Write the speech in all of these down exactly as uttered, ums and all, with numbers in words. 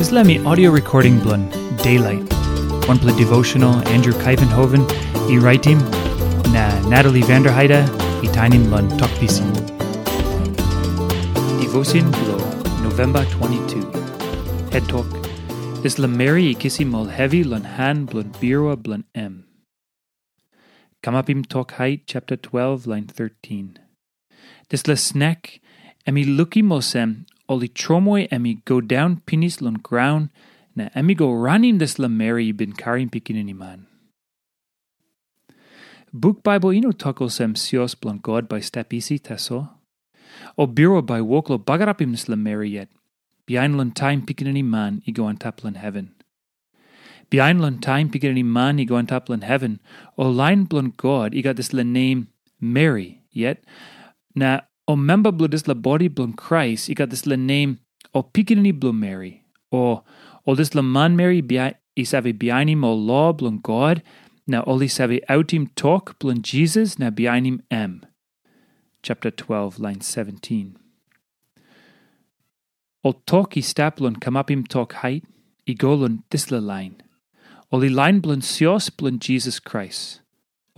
Dispela mi audio recording bilong Daylight. Wanpela devotional Andrew Kaivenhoven i raitim, na Natalie Vanderheide i tainim long Tok Pisin. Devotion bilong November twenty-two. Het tok, dispela meri i kisim ol hevi long han bilong birua bilong em. Kamapim Tok Hait chapter twelve, line thirteen. Dispela snek, em i lukim olsem, ol i tromoi em i go daun pinis long graun, na em i go ranim dispela meri i bin karim pikinini man. Buk Bible i no tok olsem sios bilong God bai stap isi tasol. O birua bai wok long bagarapim dispela meri yet, bihain long taim pikinini man i go antap long heven. Bihain long taim pikinini man i go antap long heven, ol lain bilong God i gat dispela nem Meri yet, na ol memba bilong dispela bodi bilong Krais i gat dispela nem ol pikinini bilong Meri, o ol dispela manmeri bia- i save bihainim ol lo bilong God, na ol i save autim tok bilong Jisas na bihainim em. Chapter twelve, line seventeen. Ol tok i stap long kamapim tok hait i go long dispela lain. Ol i lain bilong sios bilong Jisas Krais,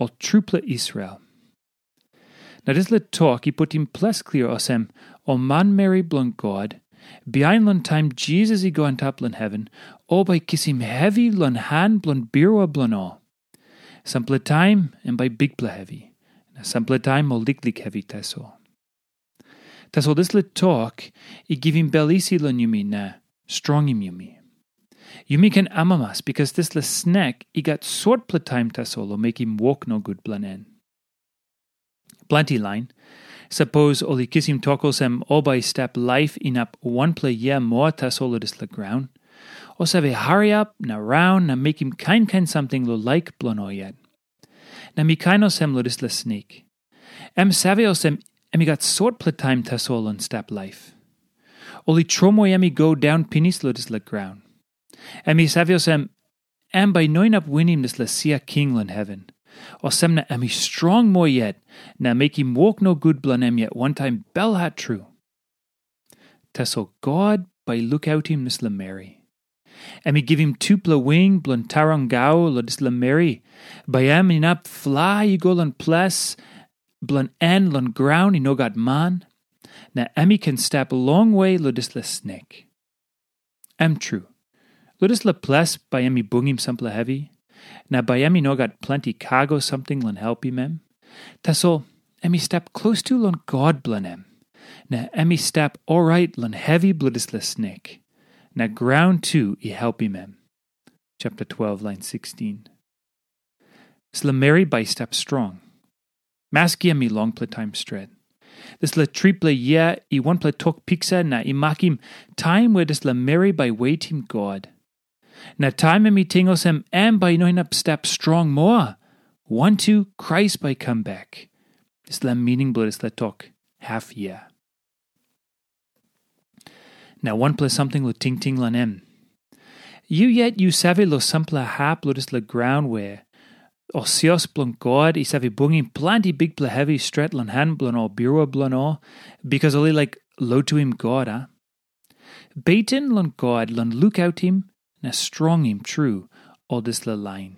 ol trupela Israel. Na dispela tok i putim ples klia olsem, ol manmeri bilong God, bihain long taim Jisas i go antap long heven, ol bai kisim hevi long han bilong birua bilong ol. Sampela taim em bai bikpela hevi, na sampela taim ol liklik hevi tasol. Tasol dispela tok i givim bel isi long yumi na strongim yumi. Yumi ken amamas, bikas dispela snek i gat sotpela taim tasol long mekim wok nogut bilong en. Planti lain, sapos ol i kisim tok olsem ol bai stap laip inap wanpela yia moa tasol long dispela graun, ol save hariap na raun na mekim kain kain samting long laik bilong ol yet. Na mi kain olsem long dispela snek. Em save olsem em i gat sotpela taim tasol long stap laip. Ol i tromoi em i go daun pinis long dispela graun. Em i save olsem, em bai i no inap winim dispela sia king long heven. Olsem na em i strong moa yet, na mekim wok nogut bilong em yet wantaim belhat tru. Tasol God bai i lukautim dispela meri. Em i givim tupela wing bilong tarangau long dispela meri, bai em inap flai i go long ples bilong en long graun i no gat man, na em i ken stap longwe long dispela snek. Em tru, long dispela ples bai em i bungim sampela hevi, na bai em i no gat planti kago samting long helpim em. Tasol em i stap klostu long God bilong em, na em i stap orait long hevi bilong dispela snek, na graun tu i helpim em. Chapter twelve, line sixteen. Dispela meri bai i stap strong, maski em i longpela taim stret. Dispela tripela yia i wanpela tok piksa na i makim taim we dispela meri bai wetim God. Na taim em i ting olsem em bai i no inap stap strong moa, wantu Krais bai i kam bek. Dispela mining bilong dispela tok, haf yia. Na wanpela samting long tingting long em. Yu yet yu save long sampela hap long dispela graun we ol sios bilong God i save bungim planti bikpela hevi stret long han bilong ol birua bilong ol, bikas ol i laik lotuim God, a? Beten long God long lukautim na strongim tru ol dispela lain.